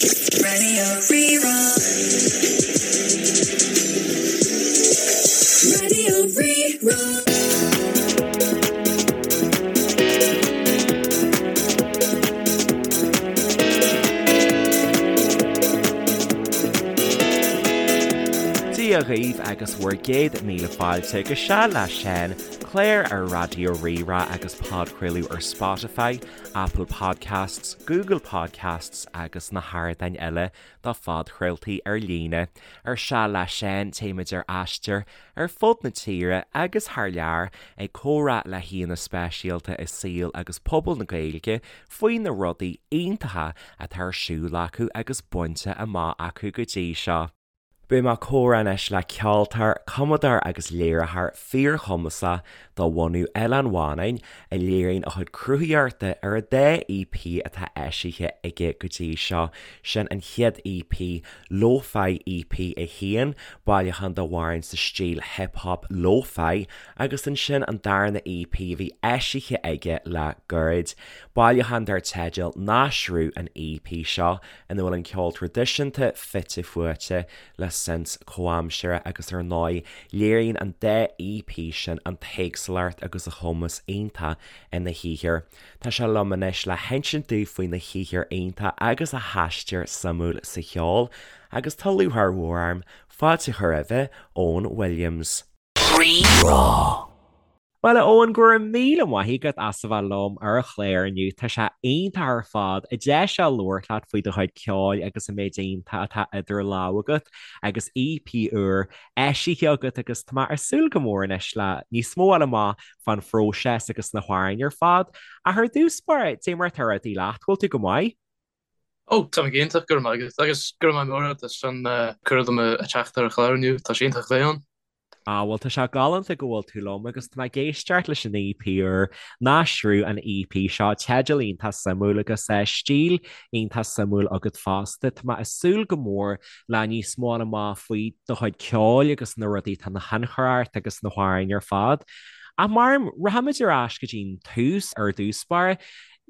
Radio Rí-Rá. Radio Rí-Rá. Dia dhaoibh agus bhur gcéad míle fáilte go Seal le Seán, clár ar Raidió Rí-Rá agus podchraoladh ar Spotify, Apple Podcasts, Google Podcasts agus na hardáin eile do phodchraoltaí ar líne. Ar Seal le Seán, téimid ar aistear ar fud na tíre agus thar lear ag comhrá le haíonna speisialta i saol agus pobal na Gaeilge faoi na rudaí iontacha atá ar siúl acu agus bainte amach acu go dtí seo. Beidh mé ag comhrá anois le ceoltóir, cumadóir agus léiritheoir fíorchumasach de bhunadh Oileán Mhanann, a léiríonn a chuid cruthaitheachta ar an dá EP atá eisithe aige go dtí seo, sin an chéad EP, Lo-Fi EP 1, bailiúchán d'amhráin sa stíl hip hop lo-fi, agus ansin an darna EP a bhí eisithe aige le gairid, bailiúchán dar teideal Náisriú an EP seo, ina bhfuil an ceol traidisiúnta fite fuaite le synths comhaimseartha agus ar ndóigh léiríonn an dá EP sin an t-éagsúlacht agus a chumas iontach ina shaothar. Tá sé liom anois le hinsint dúinn faoina shaothar iontach agus a haistear suimiúil sa cheol agus tá lúcháir mhór orm fáilte a chur roimhe, Eoin Williams. Rí-Rá. Bhuel, a Eoin, go raibh míle maith agat as a bheith liom ar an chlár inniu. Tá sé iontach ar fad an deis seo labhairt leat faoi do chuid ceoil agus an méid iontach atá idir lámha agat agus EP úr eisithe agat agus tá mé ag súil go mór anois le níos mó a fháil amach fán phróiseas agus na hamhráin ar fad. Ach ar dtús báire, dé mar atá rudaí leat, bhfuil tú go maith? Ó, tá mé go hiontach, go raibh maith agat. Agus go raibh maith mór agat as an cuireadh dom a teacht ar an chlár inniu, tá sé iontach a bheith ann. Ah, bhuel, tá sé galánta go bhfuil tú liom agus tá mé ag éisteacht leis an EP úr, Náisriú an EP seo, teideal iontach suimiúil agus stíl iontach suimiúil agat fosta. Tá mé ag súil go mór le níos mó a fháil amach faoi do chuid ceoil agus na rudaí atá ina thionchar ort agus na hamhráin ar fad. Ach mar, rachaimid ar ais go dtí'n tús ar dtús báire.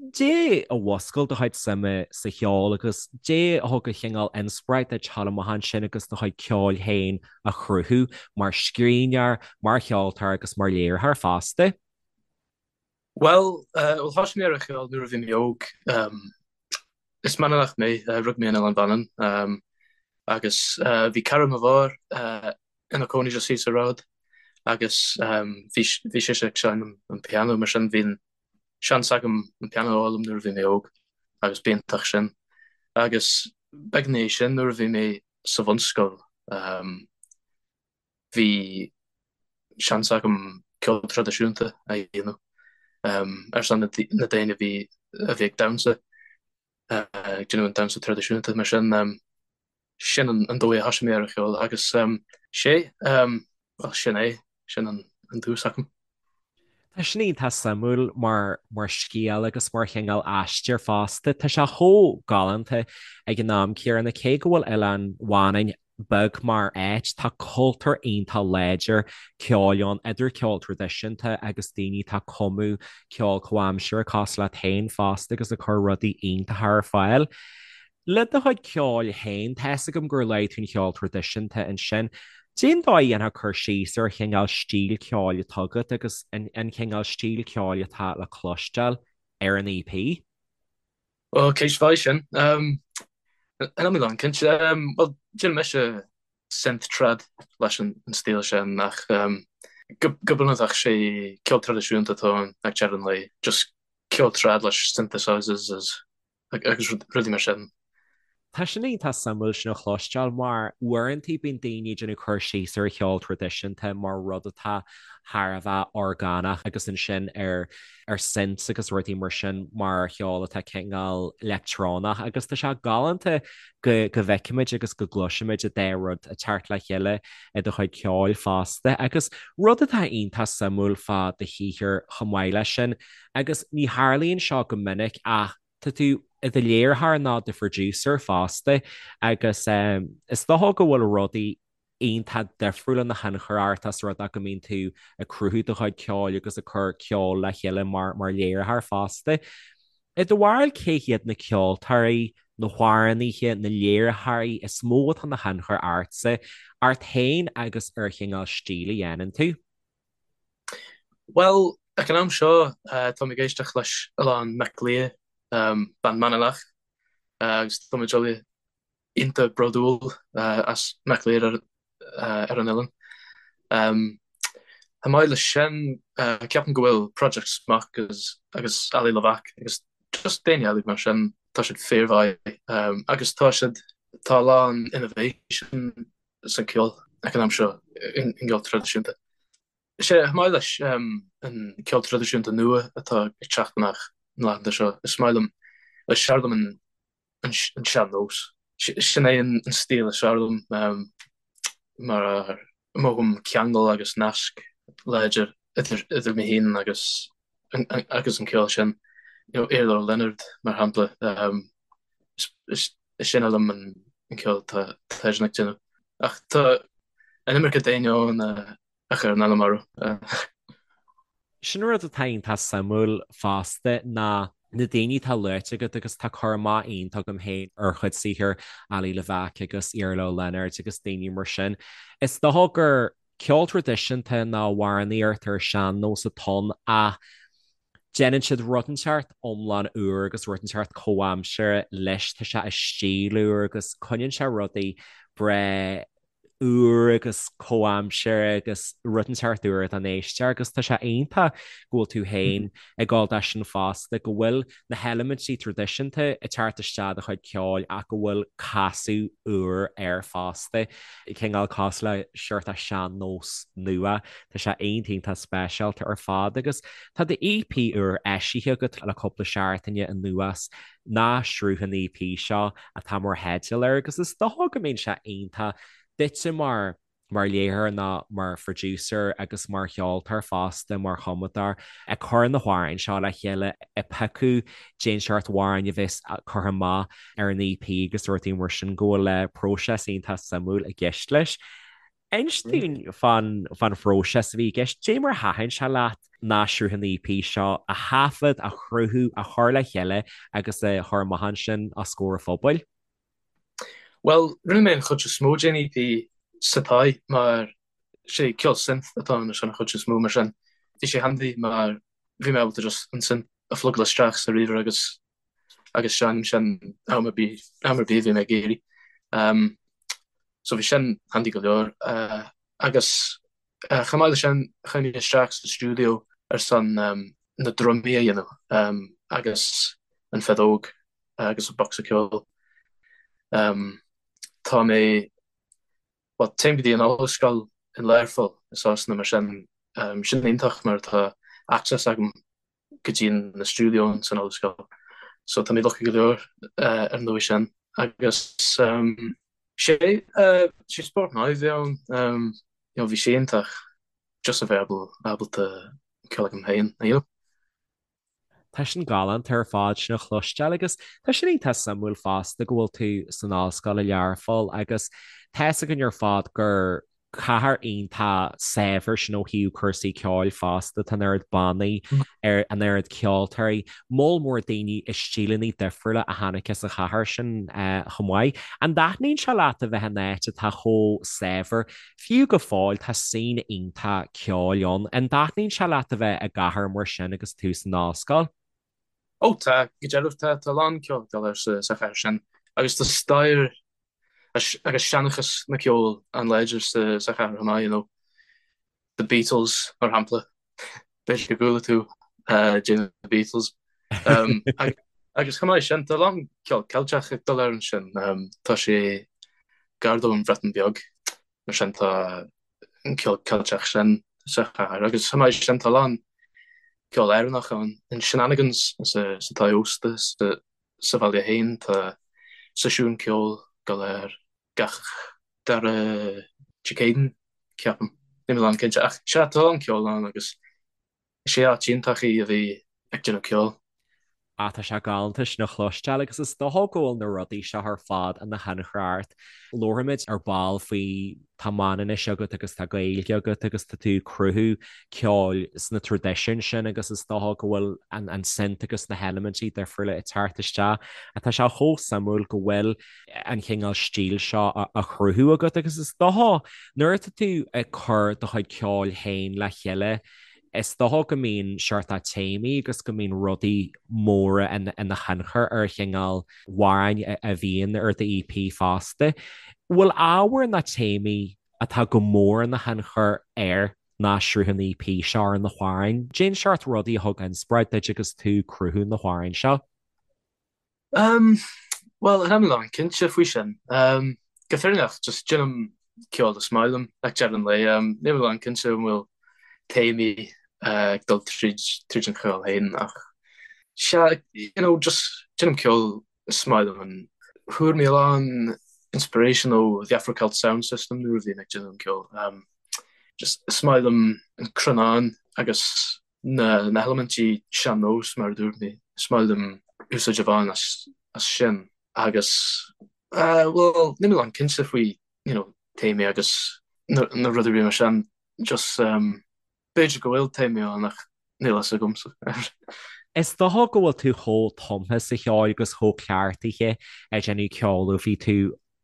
Dé a mhuscail do chuid suime sa cheol agus dé a thug an chineál inspioráid duit teacht amach ansin agus do chuid ceoil féin a chruthú mar scríbhneoir, mar cheoltóir agus mar léiritheoir fosta? Bhuel, bhuel thosaigh mé ar an cheol nuair a bhí mé óg. Is Manannach mé, rugadh mé in Oileán Mhanann agus bhí cara mo mháthar ina cónaí just thíos an ród agus bhí bhí sise ag seinm an pianó mar sin bhí an seans agam an pianó a fhoghlaim nuair a bhí mé óg agus b'iontach sin. Agus beag ina dhiaidh sin nuair a bhí mé sa bhunscoil bhí seans agam ceol traidisiúnta a dhéanamh ar son na daoine a bhí a bhí ag damhsa, ag déanamh an damhsa traidisiúnta mar sin. Sin an dóigh a thosaigh mé ar an cheol agus sé, bhuel sin é, sin an tús agam. Tá sin iontach suimiúil mar mar scéal agus mar chineál aistear fosta. Tá sé chomh galánta ag an am céanna cé go bhfuil Oileán Mhanann beag mar áit, tá cultúr iontach láidir ceoil ann, idir ceol traidisiúnta agus daoine atá ag cumadh ceol comhaimseartha cosúil leat féin fosta agus ag cur rudaí iontacha ar fáil. Le do chuid ceoil féin, tá 'fhios agam gur luaigh tú an cheol traidisiúnta ansin. Cén dóigh a ndéanfá cur síos ar chineál stíl ceoil atá agat agus an cineál stíl ceoil atá le cloisteáil ar an EP? Bhuel, ceist mhaith sin. Níl mé lánchinnte. Bhuel, déanaim mise synth trad leis an stíl sin ach go bunúsach sé ceol traidisiúnta atá ann ag deireadh an lae. Just ceol trad leis synthesizers is agus rudaí mar sin. Tá sin iontach suimiúil sin a chloisteáil mar uaireanta bíonn daoine ag déanamh cur síos ar cheol traidisiúnta mar rud atá thar a bheith orgánach agus ansin ar ar synths agus rudaí mar sin mar cheol atá cineál leictreonach agus tá sé galánta go go bhfeicimid agus go gcloisimid an dá rud ag teacht le chéile i do chuid ceoil fosta agus rud atá iontach suimiúil fá do shaothar chomh maith leis sin Agus ní tharlaíonn seo go minic ach tá tú i do léiritheoir nó do phroducer fosta agus is dócha go bhfuil rudaí iontach difriúil ina thionchar ort as rud é go mbíonn tú ag cruthú do chuid ceoil agus ag cur ceol le chéile mar mar léiritheoir fosta. I do bharúil cé hiad na ceoltóirí? na hamhránaithe, na léiritheoirí is mó atá ina thionchar ortsa, ort féin agus ar chineál stíl a dhéanann tú? Bhuel, ag an am seo, táim ag éisteacht leis a lán Miclea, bean Manannach, agus tá muid uile iontach bródúil as Miclea ar an oileán. Chomh maith leis sin, ceapaim go bhfuil Project Smok agus Ali Levack agus just daoine eile mar sin, tá siad fíormhaith agus tá siad, tá a lán innovation san ceol ag an am seo, an ceol traidisiúnta. Sea, chomh maith leis an ceol traidisiúnta nua atá ag teacht amach na laethanta seo, is maith liom, is fearr liom an an sean-nós. Sin é an stíl is fearr liom mar mothaím ceangal agus nasc láidir idir mé féin agus agus an ceol sin. You know, Iarla Leonard mar shampla, is sine liom an ceol atá eisean ag déanamh. Ach tá an iomarca daoine ann a chuireann ainm orthu. Sin rud atá iontach suimiúil fosta ná na daoine atá luaite agat agus tá cur amach iontach agam féin ar chuid saothair Ali Levack agus Iarla Leonard agus daoine mar sin. Is dócha gur ceol traidisiúnta nó amhránaíocht ar sean-nós atá ann ach déanann siad rud inteacht iomlán úr agus rud inteacht comhaimseartha leis. Tá sé i stíl úr agus coinníonn sé rudaí breá úr agus comhaimseartha agus rud inteacht úr don éisteoir agus tá sé iontach go bhfuil tú féin ag gabháil dó sin fosta, go bhfuil na heilimintí traidisiúnta ag teacht isteach i do chuid ceoil ach go bhfuil casadh úr air fosta, cineál cosúil le seort sean-nós nua. Tá sé iontach iontach speisialta ar fad agus tá do EP úr eisithe agat le cúpla seachtaine anuas, Na Sruth an EP seo atá mar theideal air agus is dócha go mbíonn sé iontach duitse mar mar léiritheoir nó mar phroducer agus mar cheoltóir fosta, mar chumadóir, ag cur na hamhráin seo le chéile, ag piocadh cén seort amhráin a bheas curtha amach ar an EP agus rudaí mar sin, go bhfuil próiseas iontach suimiúil i gceist leis. Inis dúinn fán phróiseas a bhí i gceist, cad é mar a thaitin sé leat Na Sruth an EP seo a thaifead, a chruthú, a chur le chéile agus a chur amach ansin os comhair an phobail? Bhuel, rinne mé an chuid is mó den EP sa tigh mar sé ceol synth atá ann an chuid is mó mar sin bhí sé handy mar bhí mé ábalta just an synth a phlugáil isteach sa ríomhaire agus agus seinm sin am ar bith am ar bith a bhí mé ag iarraidh. Um, so bhí sin handy go leor. Uh, agus uh, chomh maith leis sin chuaigh mé isteach sa stiúideo ar son um, na drumaí a dhéanamh um, agus an feadóg agus an bocsa ceoil. Tá mé, bhuel, téim go dtí an ollscoil in Learpholl i Sasana mar sin, sin iontach mar tá access agam go dtí na stiúideo san ollscoil. So tá mé lucky go leor ar an dóigh sin. Agus sé, sé spórt maith a bhí ann, you know, bhí sé iontach just a bheith ábalta ceol agam féin a dhéanamh. Tá sin galánta ar fad sin a chloisteáil agus tá sin iontach suimiúil fosta go bhfuil tú san ollscoil i Learpholl agus tá fhios againn ar fad gur cathair iontach saibhir sin ó thaobh cúrsaí ceoil fosta, tá an oiread bannaí, an oiread ceoltóirí, moll mór daoine i stíleanna difriúla a tháinig as an chathair sin chomh maith. An dtaitníonn sé leat a bheith in áit atá chomh saibhir Fiú go fóill, tá scene iontach ceoil ann. An dtaitníonn sé leat a bheith i gcathair mar sin agus tú san ollscoil? Ó tá, go dearbh tá, tá a lán ceoil ag dul air sa chathair sin agus tá stair agus seanchas na ceoil an-láidir sa chathair chomh maith, you know. The Beatles, mar shampla. B'fhéidir go gcuala tú de The Beatles. Agus chomh maith sin, tá a lán ceol Ceilteach ag dul air ansin. Tá sé gar don Bhreatain Bheag, mar sin tá an ceol Ceilteach sin sa chathair. Agus chomh maith sin, tá a lán ceol Éireannach ann. In Shenanigans sa tigh ósta sa bhaile féin, tá seisiún ceoil ag dul air gach dara Dé Céadaoin, ceapaim. Níl mé lánchinnte, ach sea, tá a lán ceoil ann agus is é áit iontach í a bheith ag déanamh ceoil. Ah tá sé galánta sin a chloisteáil agus is dócha go bhfuil na rudaí seo ar fad ina thionchar ort. Labharfaimid ar ball faoi tá Manainnis agat agus tá Gaeilge agat agus tá tú ag cruthú ceoil sna traidisiúin sin agus is dócha go bhfuil an an synth agus na heilimintí difriúla ag teacht isteach. Tá sé chomh suimiúil go bhfuil an chineál stíl seo á chruthú agat agus is dócha nuair atá tú ag cur do chuid ceoil féin le chéile Is dócha go mbíonn seort téamaí agus go mbíonn rudaí móra ina thionchar ar an chineál amhráin a bhíonn ar do EP fosta. Bhfuil ábhar ná téamaí atá go mór ina thionchar ar na sruthanna EP seo ar na hamhráin? Cén seort rudaí a thug inspioráid duit agus tú ag cruthú na hamhráin seo? Um, bhuel, níl mé lánchinnte faoi sin. Um, go fírinneach, just déanaim ceol is maith liom ag deireadh an lae. Um, níl mé lánchinnte an bhfuil téamaí uh, ag dul tríd, tríd an cheol féin ach sea, you know, just déanaim ceol is maith liom and fuair mé a lán inspiration ó the Afro Celt Sound System nuair a bhí mé ag déanamh an ceol. Um, just is maith liom an cronán agus na heilimintí sean-nós mar a dúirt mé, is maith liom úsáid a bhain as sin agus bhuel níl mé lánchinnte faoi you know téamaí agus na rudaí mar sin just b'fhéidir go bhfuil téamaí ann ach níl a fhios agamsa. Is dócha go bhfuil tú chomh tumtha sa cheol agus chomh cleachtaithe ag déanamh ceoil ó bhí tú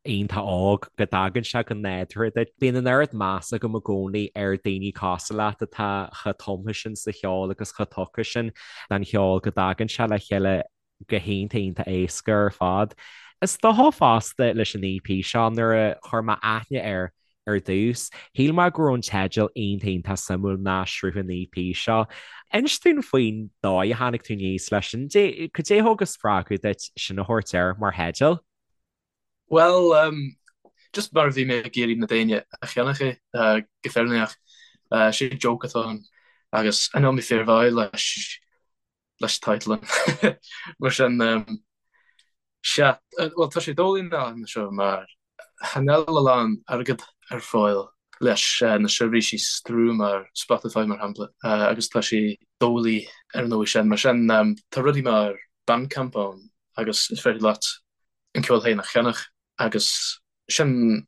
iontach óg, go dtagann sé go nádúrtha duit. Bíonn an oiread meas agam i gcónaí ar daoine cosúil leat atá chomh tumtha sin sa cheol agus chomh tugtha sin don cheol go dtagann sé le chéile go hiontach iontach éasca ar fad. Is dócha fosta leis an EP seo nuair a chuir mé aithne air ar dtús, shíl mé go raibh an teideal iontach iontach suimiúil ná sruth an EP seo. Inis dúinn faoin dóigh a tháinig tú aníos leis sin. Cad é a thug an spreagadh duit sin a thabhairt air mar theideal? Bhuel, just mar a bhí mé ag iarraidh na daoine a cheannach é, go fírinneach. Sé joke atá ann agus níl mé fíormhaith leis leis title. Mar sin, sea, bhuel tá sé doiligh na seo mar chan fheil a lán airgead ar fáil leis na seirbhísí stream mar Spotify mar shampla agus tá sé doiligh ar an dóigh sin. Mar sin, tá rudaí mar Bandcamp ann agus is féidir leat an ceol féin a cheannach agus sin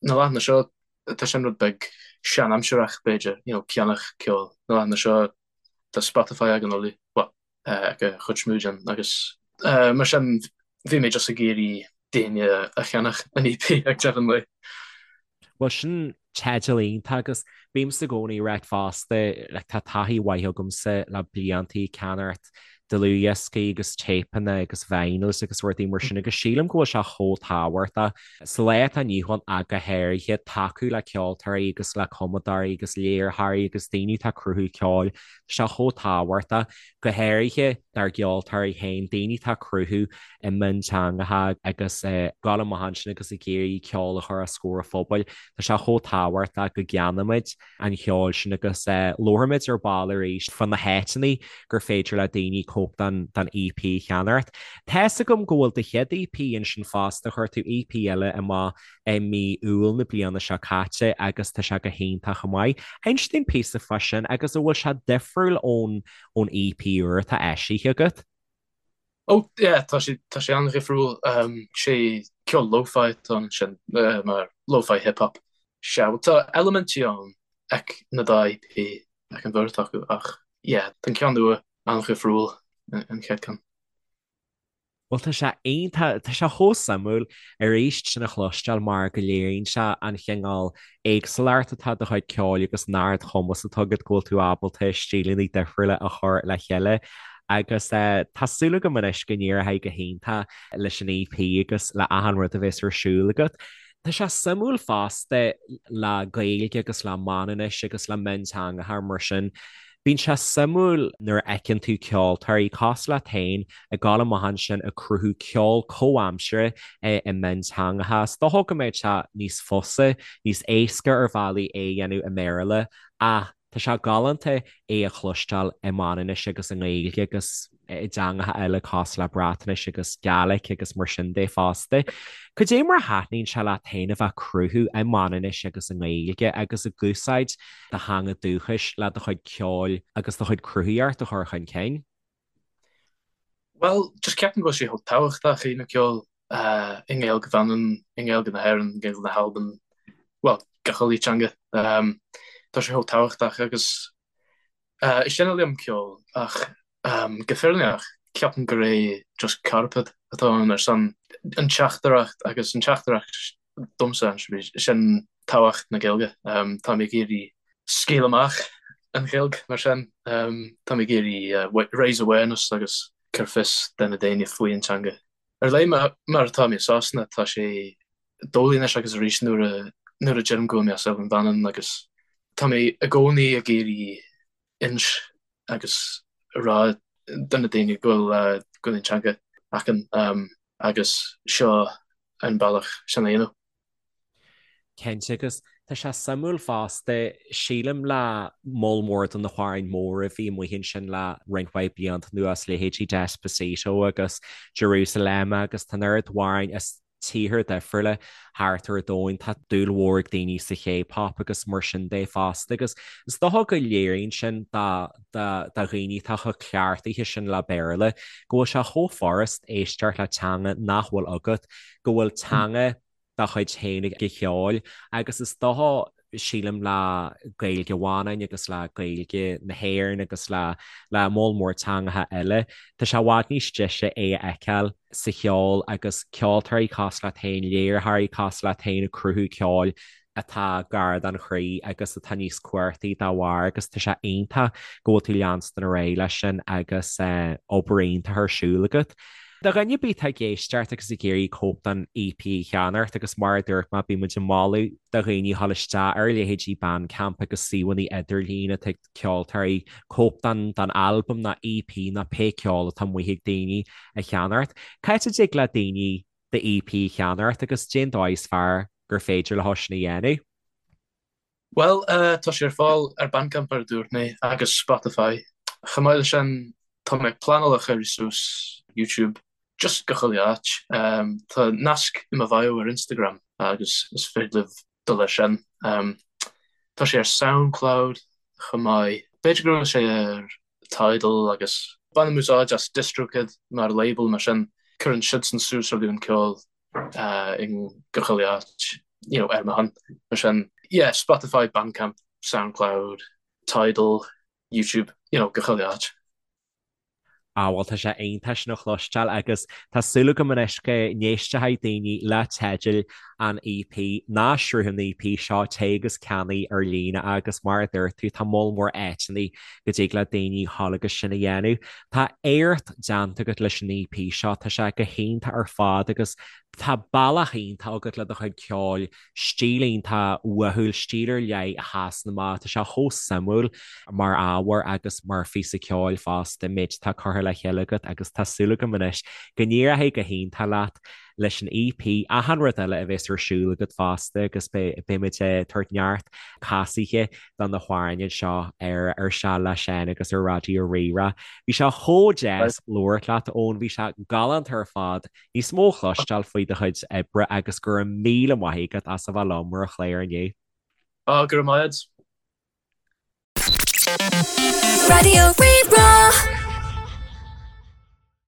na laethanta seo tá sin rud beag sean-aimsireach b'fhéidir, you know, ceannach ceoil. Na laethanta seo tá Spotify ag an uile, well, ag an chuid is mó den agus mar sin bhí mé just ag iarraidh daoine a cheannach an EP ag deireadh an lae. Bhuel, sin teideal iontach agus bímse i gcónaí ag ráit fosta, like, tá taithí mhaith agamsa le blianta ag ceannacht dlúthdhioscaí agus téipeanna agus vinyls agus rudaí mar sin agus sílim go bhfuil sé chomh tábhachtach sa lá atá inniu ann ach go háirithe tacú le ceoltóirí agus le cumadóirí agus léiritheoirí agus daoine atá ag cruthú ceoil. Tá sé chomh tábhachtach, go háirithe dár gceoltóirí féin, daoine atá ag cruthú i mionteangacha agus ag gabháil amach ansin agus ag iarraidh ceol a chur os comhair an phobail. Tá sé chomh tábhachtach go gceannaímid an cheol sin agus labharfaimid ar ball arís fá na háiteanna gur féidir le daoine cóip den den EP a cheannacht. Tá's agam go bhfuil do chéad EP ansin fosta, chuir tú EP eile amach i mí Iúil na bliana seo caite agus tá sé go hiontach chomh maith. Inis dúinn píosa fá sin agus an bhfuil sé difriúil ón ón EP úr atá eisithe agat? Oh yeah, tá sé tá sé an-dhifriúil. Sé ceol lo-fi atá ansin, mar lo-fi hip hop. Sea, bhuel tá eilimintí ann ag na dá EP, ag an bheirt acu, ach yeah, tá an ceann nua an-dhifriúil an chéad ceann. Bhuel tá sé iontach, tá sé chomh suimiúil arís sin a chloisteáil mar go léiríonn sé an chineál éagsúlacht atá i do chuid ceoil agus an ardchumas atá agat go bhfuil tú ábalta stíleanna difriúla a chur le chéile agus tá súil agam anois go n-éireoidh go hiontach leis an EP agus le achan rud a bheas ar siúl agat. Tá sé suimiúil fosta le Gaeilge agus le Manainnis agus le mionteangacha mar sin. Bíonn sé suimiúil nuair a fheiceann tú ceoltóirí cosúil leat féin ag gabháil amach ansin ag cruthú ceol comhaimseartha i mionteangacha. Is dócha go mbeadh sé níos fusa, níos éasca ar bhealaí é a dhéanamh i mBéarla ach tá sé galánta é a chloisteáil i Manainnis agus i nGaeilge agus i dteangacha eile cosúil le Breatnais agus Gaelic agus mar sin de fosta. Cad é mar a thaitníonn sé leat féin a bheith ag cruthú i Manainnis agus i nGaeilge agus ag úsáid do theanga dúchais le do chuid ceoil agus do chuid cruthaíocht a chur chun cinn? Bhuel, just ceapaim go bhfuil sé chomh tábhachtach a dhéanamh ceol i nGaeilge Mhanann, i nGaeilge na hÉireann, i nGaeilge na hAlban, bhuel, gach uile teanga. Tá sé chomh tábhachtach agus is dona liom ceol ach go fírinneach ceapaim gur é just cairpéad atá ann ar son an teachtaireacht agus an teachtaireacht domsa sin tábhacht na Gaeilge. Tá mé ag iarraidh scaoileadh amach an Ghaeilge mar sin. Tá mé ag iarraidh raise awareness agus cur fios do na daoine faoi an teanga. Ar leith mar atá mé i Sasana tá sé doiligh anois agus arís nuair a nuair a deirim go bhfuil mé as Oileán Mhanann agus tá mé i gcónaí ag iarraidh ins agus rá do na daoine go bhfuil go bhfuil an teanga againn agus seo an bealach sin a dhéanamh. Cinnte, agus tá sé suimiúil fosta, sílim le moll mór de na hamhráin móra a bhí amuigh ansin le roinnt mhaith blianta anuas, leithéidí Despacito agus Jerusalema agus tá an oiread amhráin as tíortha difriúla thart ar an domhan. Tá dúil mhór ag daoine sa K-pop agus mar sin de fosta agus is dócha go léiríonn sin do dhaoine atá chomh cleachtaithe sin le Béarla go bhfuil sé chomh furast éisteacht le teanga nach bhfuil agat, go bhfuil teanga dá chuid féin ag an cheol agus is dócha sílim le Gaeilge Mhanann agus le Gaeilge na hÉireann agus le le moll mór teangacha eile. Tá sé i bhfad níos deise é a fheiceáil sa cheol agus ceoltóirí cosúil leat féin, léiritheoirí cosúil leat féin ag cruthú ceoil atá gar don chroí agus atá níos cumhachtaí dá bharr agus tá sé iontach go bhfuil tú leanstan ar aghaidh leis sin agus obair iontach ar siúl agat. Do dhuine ar bith atá ag éisteacht agus ag iarraidh cóip den EP a cheannacht agus mar a dúirt mé bíonn muid ag moladh do dhaoine a dhul isteach ar leithéidí Bandcamp agus suíomhanna idirlín atá ag ceoltóirí cóip den den albam nó EP nó pé ceol atá amuigh ag daoine a cheannacht. Cá háit a dtig le daoine do EP a cheannacht agus cén dóigh is fearr gur féidir leo sin a dhéanamh? Bhuel, tá sé ar fáil ar Bandcamp mar a dúirt mé agus Spotify. Chomh maith leis sin, tá mé ag pleanáil a chur suas YouTube, just gach uile áit. Tá nasc i mo bhio ar Instagram agus is féidir libh dul ar sin. Tá sé ar Soundcloud chomh maith. B'fhéidir go bhfuil sé ar Tidal agus bainim úsáid as DistroKid mar label mar sin cuireann siadsan suas rudaí an ceol i gach uile áit you know ar mo shon. Mar sin yeah Spotify, Bandcamp, Soundcloud, Tidal, YouTube, you know gach uile áit. Ah bhuel tá sé iontach sin a chloisteáil agus tá súil agam anois go n-éistfidh daoine le teidil an EP ná sruth an EP seo, téigh agus ceannaigh ar líne agus mar a dúirt tú tá moll mór áiteanna go dtig le daoine dhul agus sin a dhéanamh. Tá éacht déanta agat leis an EP seo, tá sé go hiontach ar fad agus tá bealach iontach agat le do chuid ceoil, stíl iontach uathúil, stíl ar leith a sheasann amach, tá sé chomh suimiúil mar ábhar agus mar phíosa ceoil fosta, an méid atá curtha le chéile agat agus tá súil agam anois go n-éireoidh go hiontach leat leis an EP, achan rud eile a bheas ar siúl agat fosta agus beidh muid ag tabhairt neart casaithe do na hamhráin anseo ar ar Seal le Seán agus ar Raidió Rí-Rá. Bhí sé chomh deas labhairt leat, Eoin, bhí sé galánta ar fad níos mó a chloisteáil faoi do chuid oibre agus go raibh míle maith agat as a bheith liom ar an chlár inniu. Á, go raibh maith agat. Raidió Rí-Rá.